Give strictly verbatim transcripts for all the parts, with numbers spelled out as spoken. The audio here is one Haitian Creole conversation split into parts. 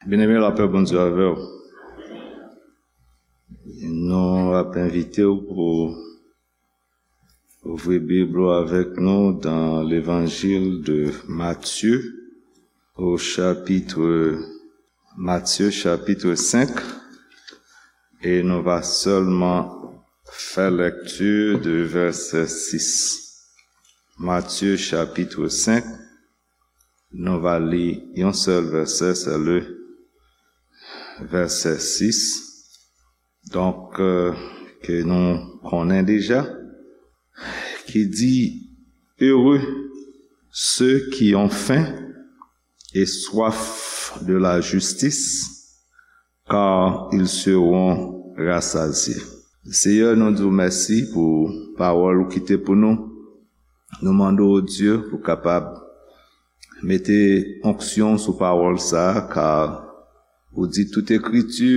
Byeneme, lapè Bondye avè w. Nou ap envite w pou ouvri Bib ou avèk nou dans l'Évangile de Matthieu, au chapitre, Matthieu chapitre cinq, et nou va seulement faire lecture de verset six. Matthieu chapitre cinq, nou va li yon sèl vèsè, c'est le verset six. Donk, euh, ke nou konnen deja, ki di, heureux ceux qui ont faim et soif de la justice, car ils seront rassasiés. Seyè, nou di w mèsi pou pawòl ou kite pou nou. Nou mande w, Dye, pou kapab mete onksyon sou pawòl sa a, ka ou di tout ekriti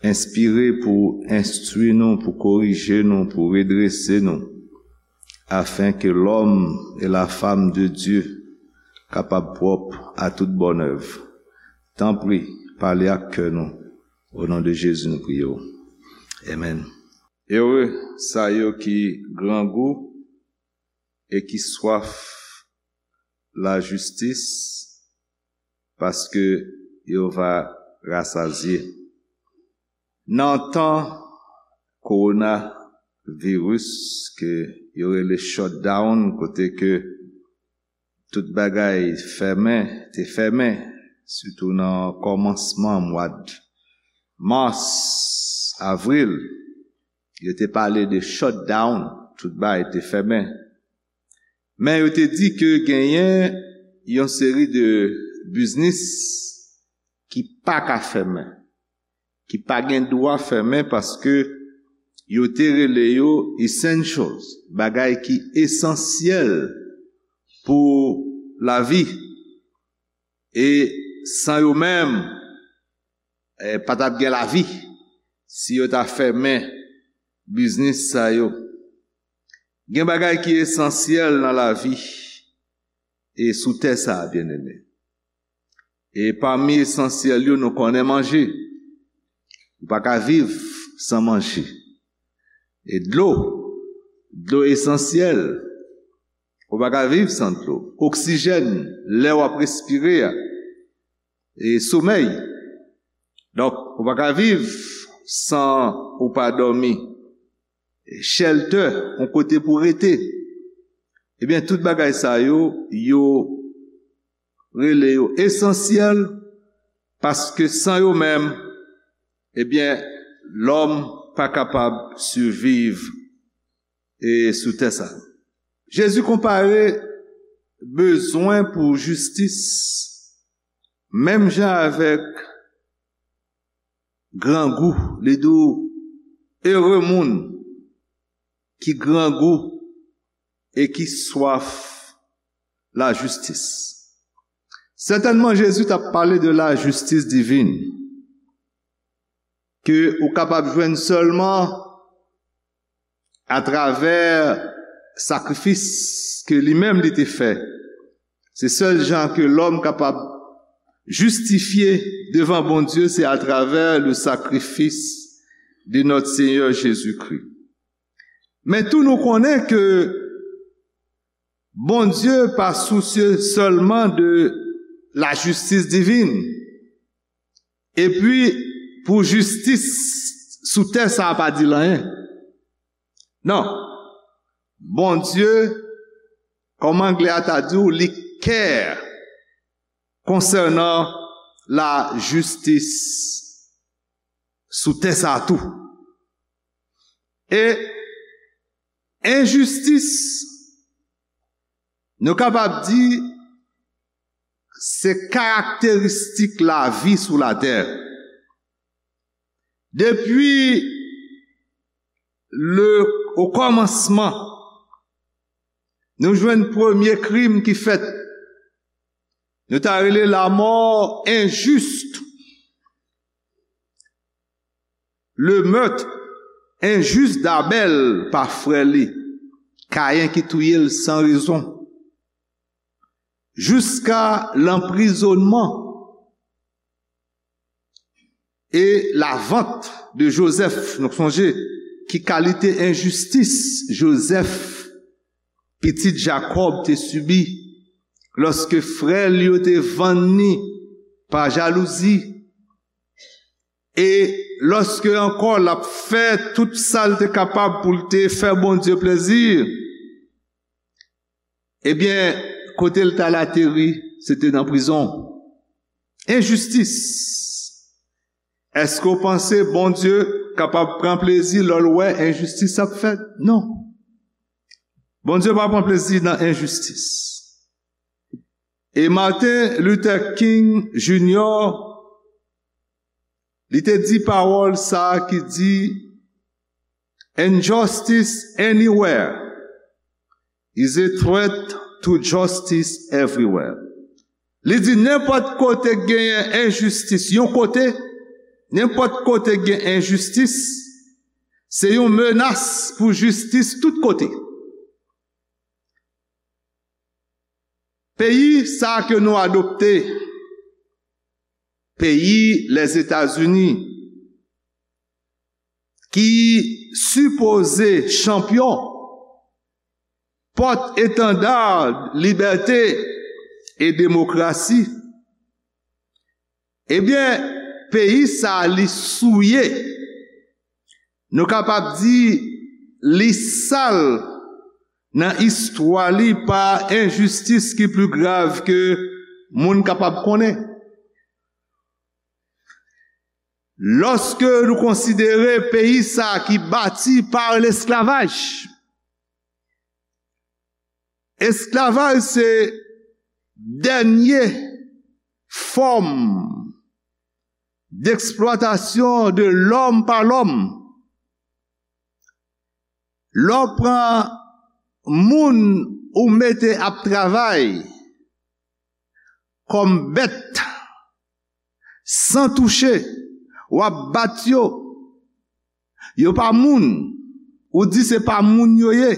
enspire pou enstwi nou, pou korije nou, pou redrese nou, afin que l'homme et la femme de Dieu kapab pwòp a tout bonn èv. Tanpri, pale ak kè nou. O non de Jezi, nou priye w. Amen. Ere sa yo ki grangou e ki swaf lajistis, paske yo va rasazye. Nan tan kowonaviris ke yo rele shutdown, kote ke tout bagay fèmen, te fèmen, sitou nan kòmansman mwa d mas, avril, yo te pale de shutdown, tout bagay te fèmen. Men yo te di ke genyen yon seri de biznis ki pa ka fèmen, ki pa gen dwa fèmen paske yo te rele yo essentials, bagay ki esansyèl pou lavi. E san yo menm, eh, pa t ap gen lavi si yo ta fèmen biznis sa yo. Gen bagay ki esansyèl nan lavi e sou tè sa a, byeneme. E pami esansyèl yo, nou konnen manje. Ou pa ka viv san manje. E dlo, dlo esansyèl. Ou pa ka viv san dlo. Oksijèn, lè w ap respire a. E somèy. Donk, ou pa ka viv san ou pa dòmi. E shelter, yon kote pou rete. Ebyen, tout bagay sa yo, yo rele yo esansyèl, paske san yo menm, ebyen, lòm pa kapab siviv e sou tè sa. Jezi konpare bezwen pou jistis menm jan avèk grangou. Li di w, ere moun ki grangou e ki swaf lajistis. Sètènman, Jezi t ap pale de lajistis divin, ke ou kapab jwenn sèlman atravè sakrifis ke li menm li te fè. Se sèl jan ke lòm kapab jistifye devan Bondye, se atravè le sacrifice de notre Seigneur Jésus-Christ. Men tou nou konnen ke Bondye pa sousye sèlman de lajistis divin. Epi, pou jistis sou tè sa a pa di l anyen. Non. Bondye, kòm anglè a ta di w, li care konsènan lajistis sou tè sa a tou. E enjistis, nou kapab di, se karakteristik lavi sou latè. Depi le, o kòmansman, nou jwenn premye krim ki fèt. Nou ta rele lamò enjis. Le meurtre injuste d'Abel pa frè li, Kayen ki touye l san rezon. Jiska lanprizonnman E la vente de Joseph, nou sonje ki kalite enjistis Joseph, pitit Jakòb, te sibi lòske frè l yo te vann li pa jalouzi, e lòske ankò l ap fè tout sa l te kapab pou l te fè Bondye plezi, ebyen, kote l t al ateri, se te nan prizon. Enjistis. Èske w panse Bondye kapab pran plezi lè l wè enjistis ap fèt? Non. Bondye pa pran plezi nan enjistis. E Martin Luther King Junior, li te di pawòl sa a ki di, "Injustice anywhere is a threat to justice everywhere." Li di nenpòt kote k genyen enjistis yon kote, nenpòt kote k gen enjistis, se yon menas pou jistis tout kote. Peyi sa ke nou adopte, peyi Lèzetazini, ki sipoze chanpyon, pòt etanda libète e demokrasi, ebyen, peyi sa a li souye, nou kapab di li sal nan istwa li pa enjistis ki pli grav ke moun kapab konnen. Lòske nou konsidere peyi sa ki bati pa lesklavaj, esklavaj se dènye fòm deksplwatasyon de lòm pa lòm. Lè w pran moun ou mete ap travay kòm bèt, san touche, w ap bat yo. Yo pa moun, ou di se pa moun yo ye.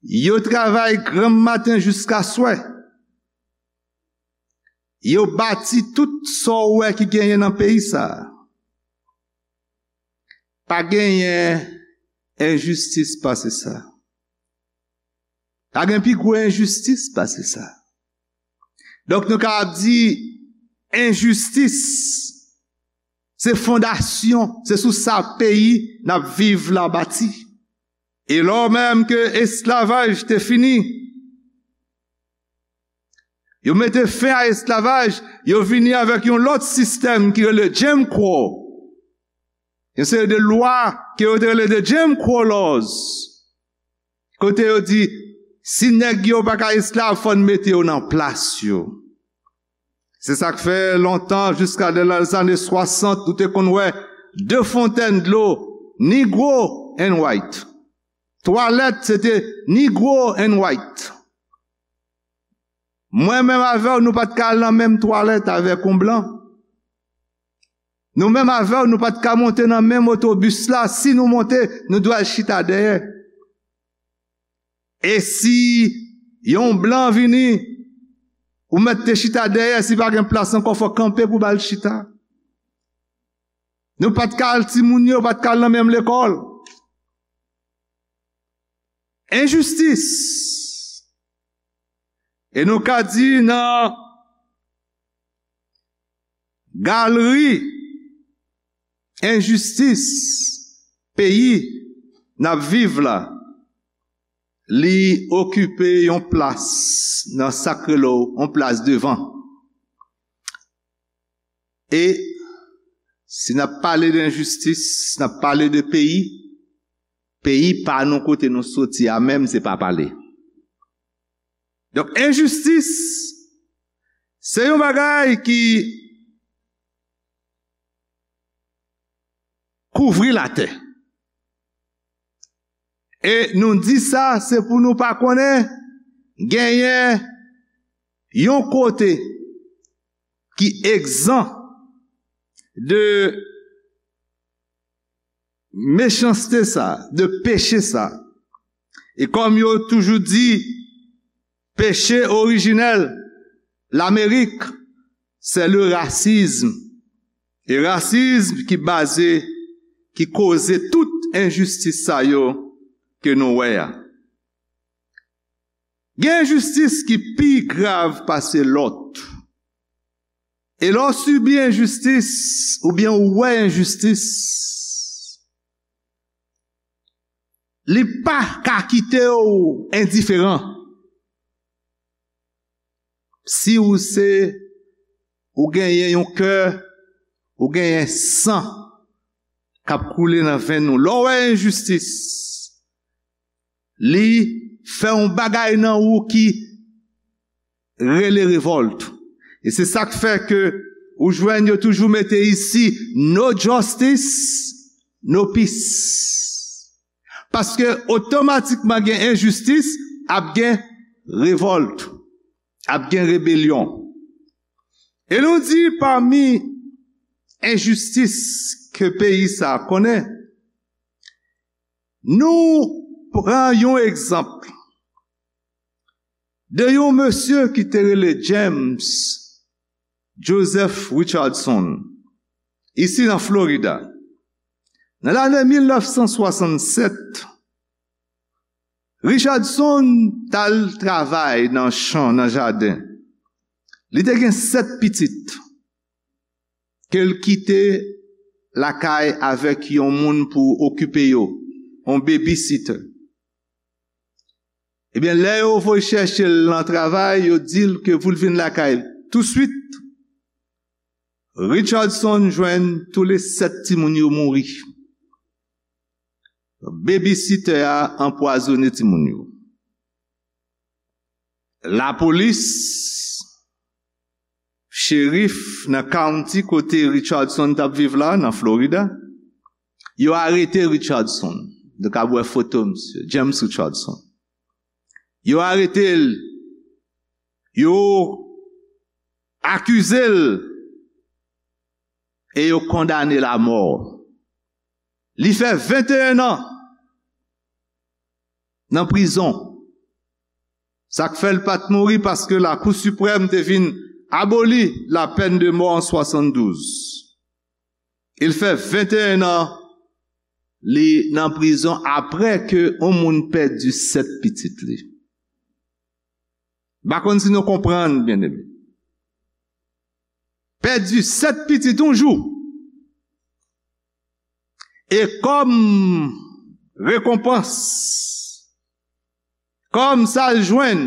Yo travay granm maten jiska swè. Yo bati tout sa w wè ki genyen nan peyi sa a. Pa genyen enjistis pase sa. Pa gen pi gwo enjistis pase sa. Donk, nou kapab di enjistis se fondasyon, se sou sa peyi n ap viv la bati. E lò menm ke esklavaj te fini, yo mete fen a esklavaj, yo vini avèk yon lòt sistèm ki rele Jim Crow. Yon seri de lwa ke yo te rele de Jim Crow laws. Kote yo di, si nèg yo pa ka esklav, fò n mete yo nan plas yo. Se sa k fè lontan, jiska de lèzane swasant, ou te konn wè de fontèn dlo, Negro and white. Twalèt, se te Negro and white. Mwen menm avè w, nou pa t ka al nan menm twalèt avèk yon blan. Nou menm avè w, nou pa t ka monte nan menm otobis la. Si nou monte, nou dwe al chita dèyè. E si yon blan vini, ou mèt te chita dèyè, si pa gen plas ankò, fò kanpe pou ba l chita. Nou pa t ka al, timoun yo pa t ka al nan menm lekòl. Enjistis. E nou ka di nan galri enjistis peyi n ap viv la, li okipe yon plas nan sa k rele yon plas devan. E si n ap pale de enjistis, si n ap pale de peyi, peyi pa nou kote nou soti a menm se pa pale. Donk, enjistis, se yon bagay ki kouvri latè. E nou di sa, se pou nou pa konnen genyen yon kote ki egzan de mechanste sa, de peche sa. E kòm yo toujou di, peche orijinèl Lamerik, c'est le racisme. E rasism ki baze, ki koze tout enjistis sa yo ke nou wè a. Gen enjistis ki pi grav pase lòt. E lè w sibi enjistis, oubyen w wè enjistis, li pa ka kite w endiferan. Si ou se, ou genyen yon kè, ou genyen san k ap koule nan venn ou. Lè w wè enjistis, li fè yon bagay nan ou ki rele revòlt. E se sa k fè ke ou jwenn yo toujou mete isi, "No justice, no peace." Paske otomatikman gen enjistis, ap gen revòlt, ap gen rebelyon. E nou di pami enjistis ke peyi sa a konnen, nou pran yon egzanp de yon mesye ki te rele James Joseph Richardson, isi nan Florida. Nan lane mil nèf san swasannsèt, Richardson t al travay nan chan, nan jaden. Li te gen sèt pitit ke l kite lakay avèk yon moun pou okipe yo, yon babysitter. Ebyen, lè yo voye chèche l nan travay, yo di l ke pou l vin lakay touswit. Richardson jwenn toule sèt timoun yo mouri. Babysitter a anpwazonnen timoun yo. Lapolis, cherif nan county kote Richardson t ap viv la, nan Florida, yo arete Richardson. Nou ka wè foto misye, James Richardson. Yo arete l, yo akize l e yo kondane l amò. Li fè venteyen an nan prizon. Sa k fè l pa t mouri, paske Lakou Siprèm te vin aboli la peine de mort an swasanndouz. Li fè venteyen an li nan prizon apre ke yon moun pèdi sèt pitit li. M pa konn si nou konprann, byeneme. Pèdi sèt pitit yon jou. E kòm rekonpans, kòm sa l jwenn,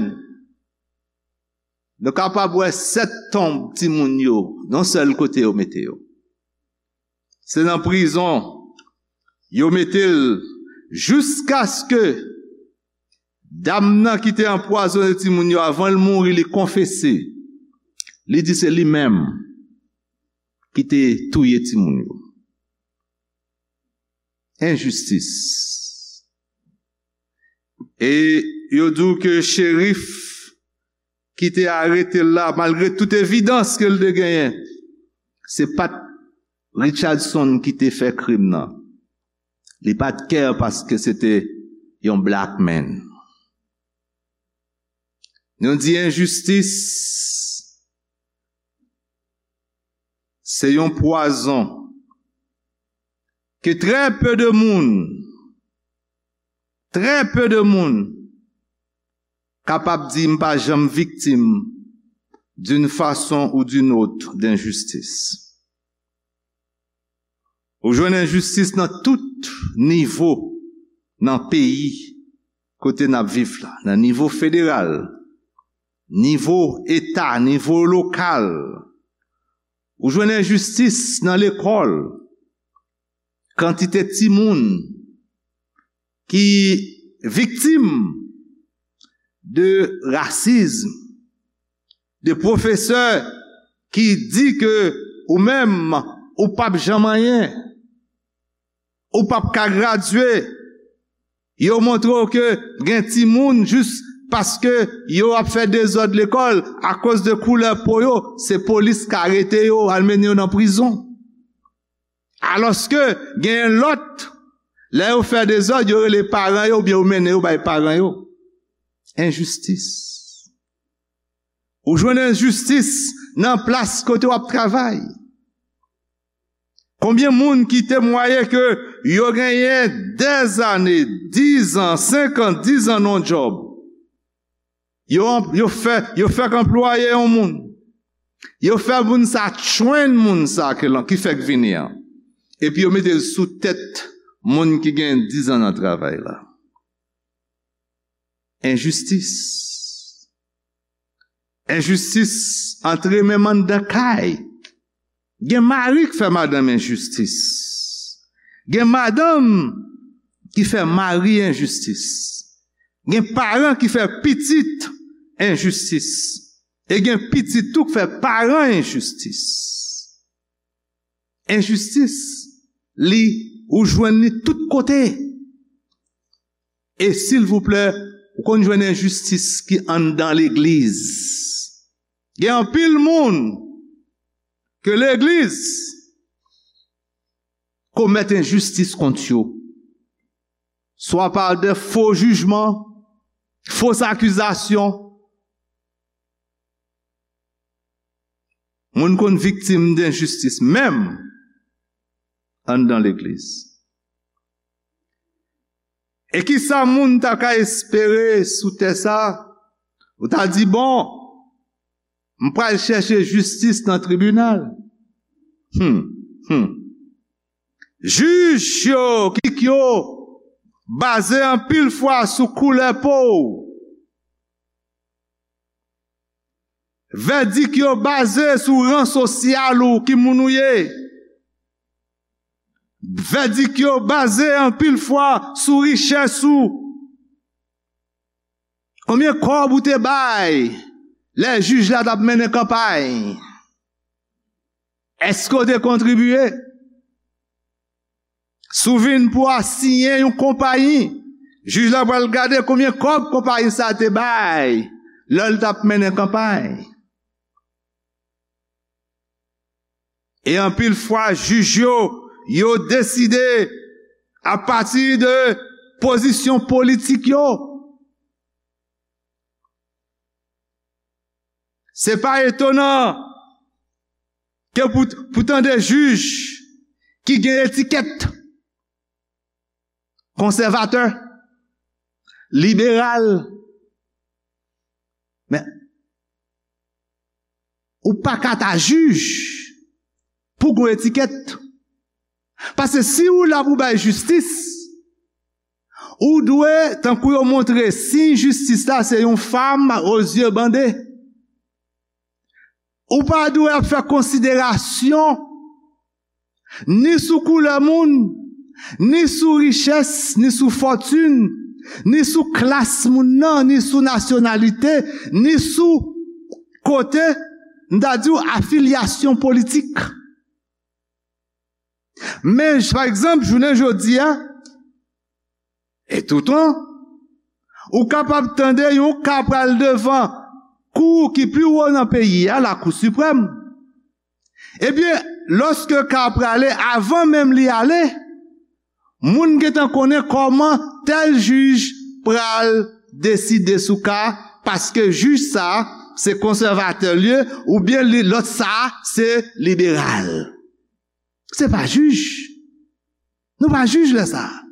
nou kapab wè sèt tonb timoun yo, yon sèl kote yo mete yo. Se nan prizon yo mete l jiskaske dam nan ki te anpwazonnen timoun yo, avan l mouri, li konfese. Li di se li menm ki te touye timoun yo. Enjistis. E yo di w ke cherif ki te arete l la, malgre tout evidans ke l te genyen, se pa t Richardson ki te fè krim nan. Li pa t care paske se te yon black man. Nou di enjistis se yon pwazon ke trè pe de moun, trè pe de moun kapab di, "M pa janm viktim d'une façon ou d'une autre d'injustice." Ou jwenn enjistis nan tout nivo nan peyi kote n ap viv la, nan nivo federal, nivo eta, nivo lokal. Ou jwenn enjistis nan lekòl. Kantite timoun ki viktim de rasism, de pwofesè ki di ke ou menm, ou p ap janm anyen, ou p ap ka gradye. Yo montre w ke gen timoun, jis paske yo ap fè dezòd lekòl, akoz de koulè po yo, se polis k arete yo, al mennen yo nan prizon. Alòske genyen lòt, lè yo fè dezòd, yo rele paran yo oubyen yo mennen yo bay paran yo. Enjistis. Ou jwenn enjistis nan plas kote w ap travay. Konbyen moun ki temwaye ke yo genyen dèzane, dizan, senkant, dizan nan yon djòb? Yo, yo fè, yo fèk anplwaye yon moun. Yo fè moun sa train moun sa ke lan, ki fèk vini an. Epi yo mete l sou tèt moun ki gen dizan nan travay la. Enjistis. Enjistis antre menm anndan kay. Gen mari k fè madanm enjistis. Gen madanm ki fè mari enjistis. Gen paran ki fè pitit enjistis. E gen pitit tou k fè paran enjistis. Enjistis, li, ou jwenn li tout kote. E silvouplè, ou konn jwenn enjistis ki anndan legliz. Gen anpil moun ke legliz komèt enjistis kont yo. Swa pa de fo jijman, fos akizasyon. Moun konn viktim denjistis, menm anndan legliz. E ki sa moun ta ka espere sou tè sa? Ou ta di, bon, m pral chèche jistis nan tribinal. Hmm, hmm. Jij yo, ki yo baze anpil fwa sou koulè po w. Vèdik yo baze sou ran sosyal ou, ki moun ou ye. Vèdik yo baze anpil fwa sou richès ou. Konbyen kòb ou te bay lè jij la t ap mennen kanpay? Èske w te kontribye? Si w vin pou asiyen yon konpayi, jij la pral gade konbyen kòb konpayi sa a te bay lè l t ap mennen kanpay. E anpil fwa, jij yo, yo deside apati de pozisyon politik yo. Se pa etonan ke pou, pou tande jij ki gen etikèt konsèvatè, liberal. Men, ou pa ka ta jij pou gon etikèt. Paske si ou la pou bay jistis, ou dwe, tankou yo montre siy jistis la, se yon fam o zye bande. Ou pa dwe ap fè konsiderasyon ni sou koulè moun, ni sou richès, ni sou fòtin, ni sou klas moun nan, ni sou nasyonalite, ni sou kote, m ta di w, afilyasyon politik. Men, pa egzanp, jounen jodi a, e toutan, ou kapab tande yon ka pral devan kou ki pi wo nan peyi a, Lakou Siprèm. Ebyen, lòske ka a prale, avan menm li ale, moun gentan konnen kòman tèl jij pral deside sou ka a, paske jij sa a, se konsèvatè l ye, oubyen li, lòt sa a, se liberal. Se pa jij. Nou pa jij lè sa a.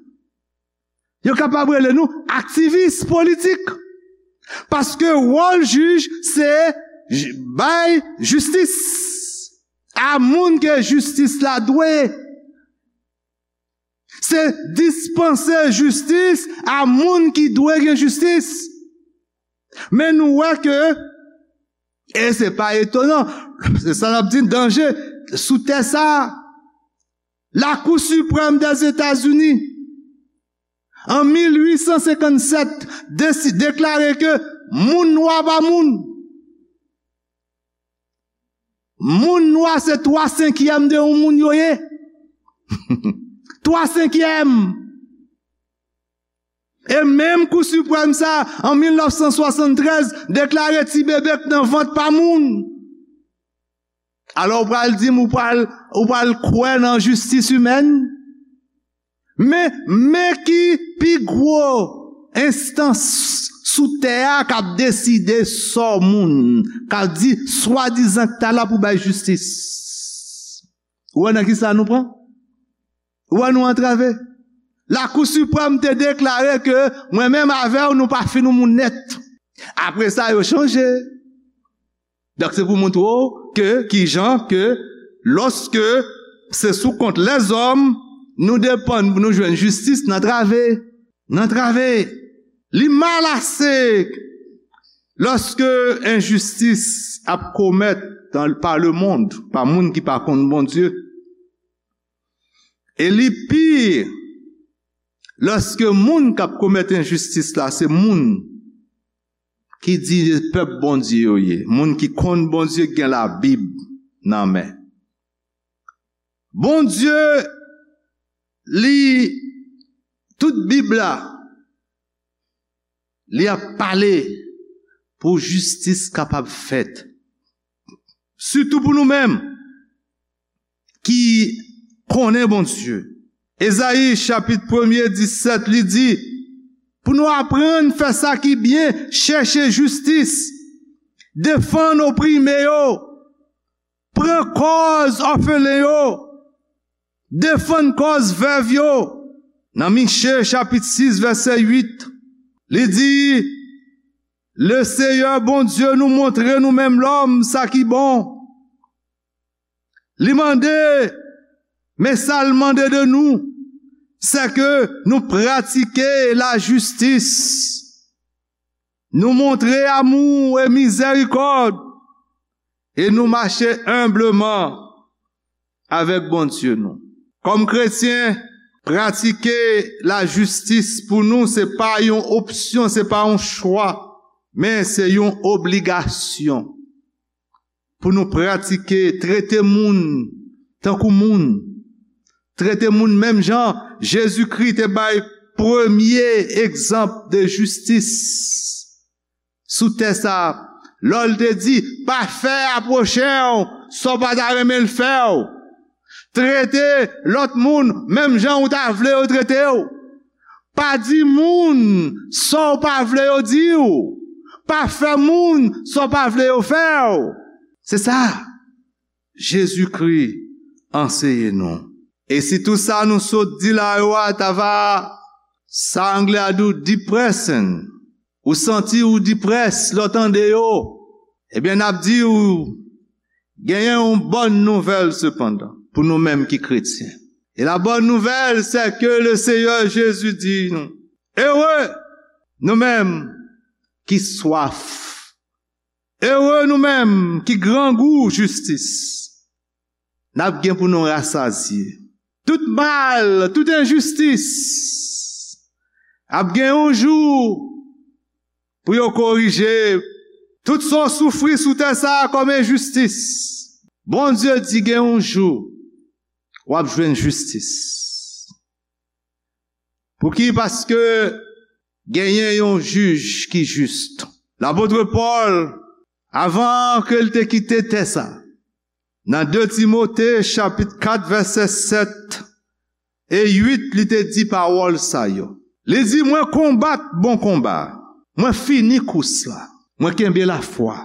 Yo kapab rele nou aktivis politik. Paske wòl jij se j-, bay jistis a moun ke jistis la dwe. Se dispanse jistis a moun ki dwe gen jistis. Men nou wè ke, e se pa etonan, se sa n ap di danje sou tè sa a. Lakou Siprèm Dèzetazini, an mil uit san senkann sèt, desi-, deklare ke moun nwa pa moun. Moun nwa se twa senkyèm de yon moun yo ye. Twa senkyèm. E menm Kou Siprèm sa, an mil nèf san swasanntrèz, deklare ti bebe k nan vant pa moun. Alò, ou pral di m, ou pral, ou pral kwè nan jistis imèn? Men, men ki pi gwo enstans sou tè a k ap deside sò moun, k ap di swadizan k ta la pou bay jistis. Ou wè nan ki sa nou pran? Ou wè nou antrave? Lakou Siprèm te deklare ke mwen menm avè w, nou pa fin yon moun nèt. Apre sa, yo chanje. Donk, se pou montre w ke, ki jan ke, lòske se sou kont lèzòm, nou depann pou nou jwenn jistis, n antrave. N antrave. Li mal ase lòske enjistis ap komèt dan, pa lemonn, pa moun ki pa konn Bondye. E li pi lòske moun k ap komèt enjistis la se moun ki di pèp Bondye yo ye, moun ki konn Bondye, ki gen Labib nan men. Bondye, li, tout Bib la, li ap pale pou jistis kapab fèt. Sitou pou nou menm ki konnen Bondye. Ezayi chapit premye disèt, li di, pou nou aprann fè sa ki byen, chèche jistis, defann oprime yo, pran kòz òfelen yo, defann kòz vèv yo. Nan Miche chapit sis vèsè uit, li di, Leseyè Bondye nou montre nou menm lòm sa ki bon. Li mande, men sa l mande de nou, se ke nou pratike lajistis, nou montre amou e mizèrikòd, e nou mache enbleman avèk Bondye nou. Kòm kretyen, pratike lajistis pou nou, se pa yon opsyon, se pa yon chwa, men se yon obligasyon. Pou nou pratike, trete moun tankou moun. Trete moun menm jan Jezikri te bay premye egzanp de jistis sou tè sa a, lè l te di, pa fè a pwochen w sa w pa ta renmen l fè w. Trete lòt moun menm jan ou ta vle yo trete w. Pa di moun sa w pa vle yo di w. Pa fè moun sa w pa vle yo fè w. Se sa Jezikri anseye nou. E si tout sa nou sot di la yo a ta va, sa anglè a di w depressing, ou santi w depressed lè w tande yo, ebyen, n ap di w, genyen yon bòn nouvèl sepandan, pou nou menm ki kretyen. E la bonne nouvelle, c'est que le Seigneur Jésus di nou, ere nou menm ki swaf, ere nou menm ki grangou jistis. N ap gen pou nou rasazye. Tout mal, tout enjistis ap gen yon jou pou yo korije. Tout sa w soufri sou tè sa a kòm enjistis, Bondye di gen yon jou w ap jwenn jistis. Pouki? Paske genyen yon jij ki jis. Lapot Pòl, avan ke l te kite tè sa, nan de Timote chapit kat vèsè sèt e uit, li te di pawòl sa yo. Li di, mwen konbat bon konba, mwen fini kous la, mwen kenbe lafwa.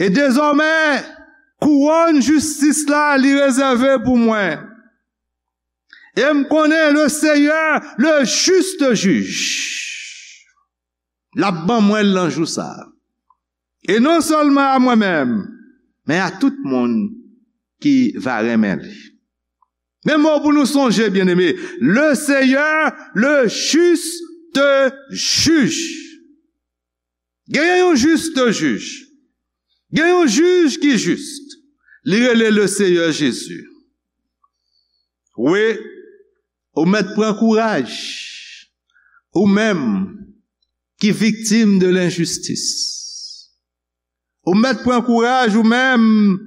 E dezòmè, kouwòn jistis la li rezève pou mwen. E m konnen le Seyè, le juste juge, l ap ban mwen l nan jou sa a. E non sèlman a mwen menm, men a tout moun ki va renmen li. Men mo pou nou sonje, byeneme, le Seyè, le juste juge. Genyen yon jis jij. Gen yon jij ki jis. Li rele le Seyè Jezi. Wi, ou mèt pran kouraj. Ou menm ki viktim de lenjistis. Ou mèt pran kouraj ou menm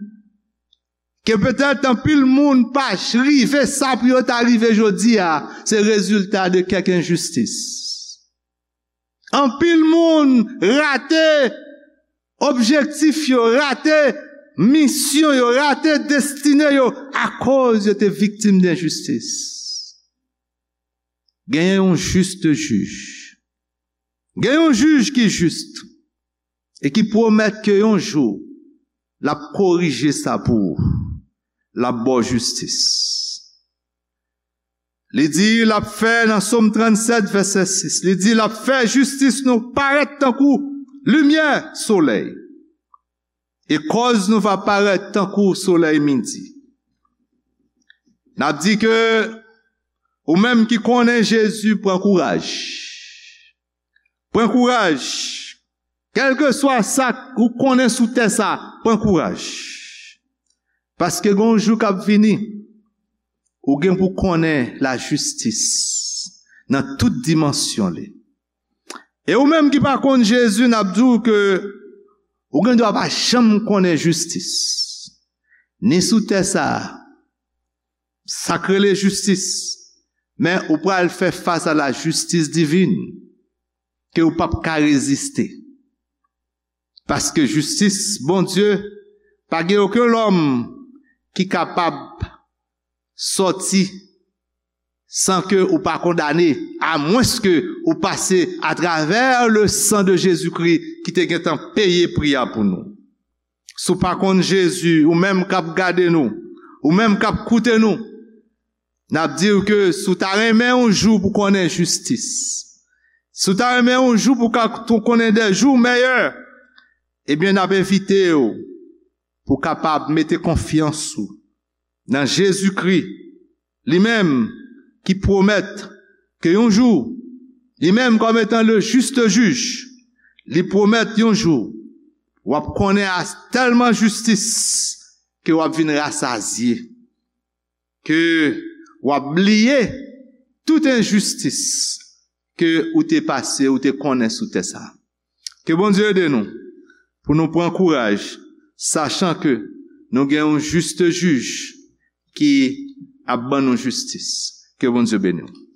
ke petèt anpil moun pa rive sa pou yo ta rive jodi a, se rezilta de kèk enjistis. Anpil moun rate objektif yo, rate misyon yo, rate destine yo akoz yo te viktim denjistis. Genyen yon jis jij. Gen yon jij ki jis e ki pwomèt ke yon jou l ap korije sa pou ou. L ap ba w jistis. Li di l ap fè nan Sòm trannsèt vèsè sis, li di l ap fè jistis nou parèt tankou limyè solèy. E kòz nou va parèt tankou solèy midi. N ap di ke ou menm ki konnen Jezi, pran kouraj. Pran kouraj. Kèlkeswa sa ou konnen sou tè sa, pran kouraj. Paske gen yon jou k ap vini, ou gen pou konnen lajistis nan tout dimansyon li. E ou menm ki pa konn Jezi, n ap di w ke ou gen dwa pa janm konnen jistis. Ni sou tè sa a, sa k rele jistis, men ou pral fè fas a lajistis divin ke ou p ap ka reziste. Paske jistis Bondye, pa gen okenn lòm ki kapab sòti san ke ou pa kondane, amwenske ou pase atravè le san de Jezikri ki te gentan peye pri a pou nou. Si w pa konn Jezi, ou menm k ap gade nou, ou menm k ap koute nou, n ap di w ke si w ta renmen yon jou pou konnen jistis, si w ta renmen yon jou pou ka tou konnen de jou meyè, ebyen, n ap envite w pou w kapab mete konfyans ou nan Jezikri, li menm ki pwomèt ke yon jou, li menm kòm etan le juste juge, li pwomèt yon jou, w ap konnen a tèlman jistis ke w ap vin rasazye, ke w ap bliye tout enjistis ke ou te pase, ou te konnen sou tè sa. Ke Bondye ede nou pou nou pran kouraj, sachan ke nou gen yon juste jij ki ap ban nou jistis. Ke Bondye beni w.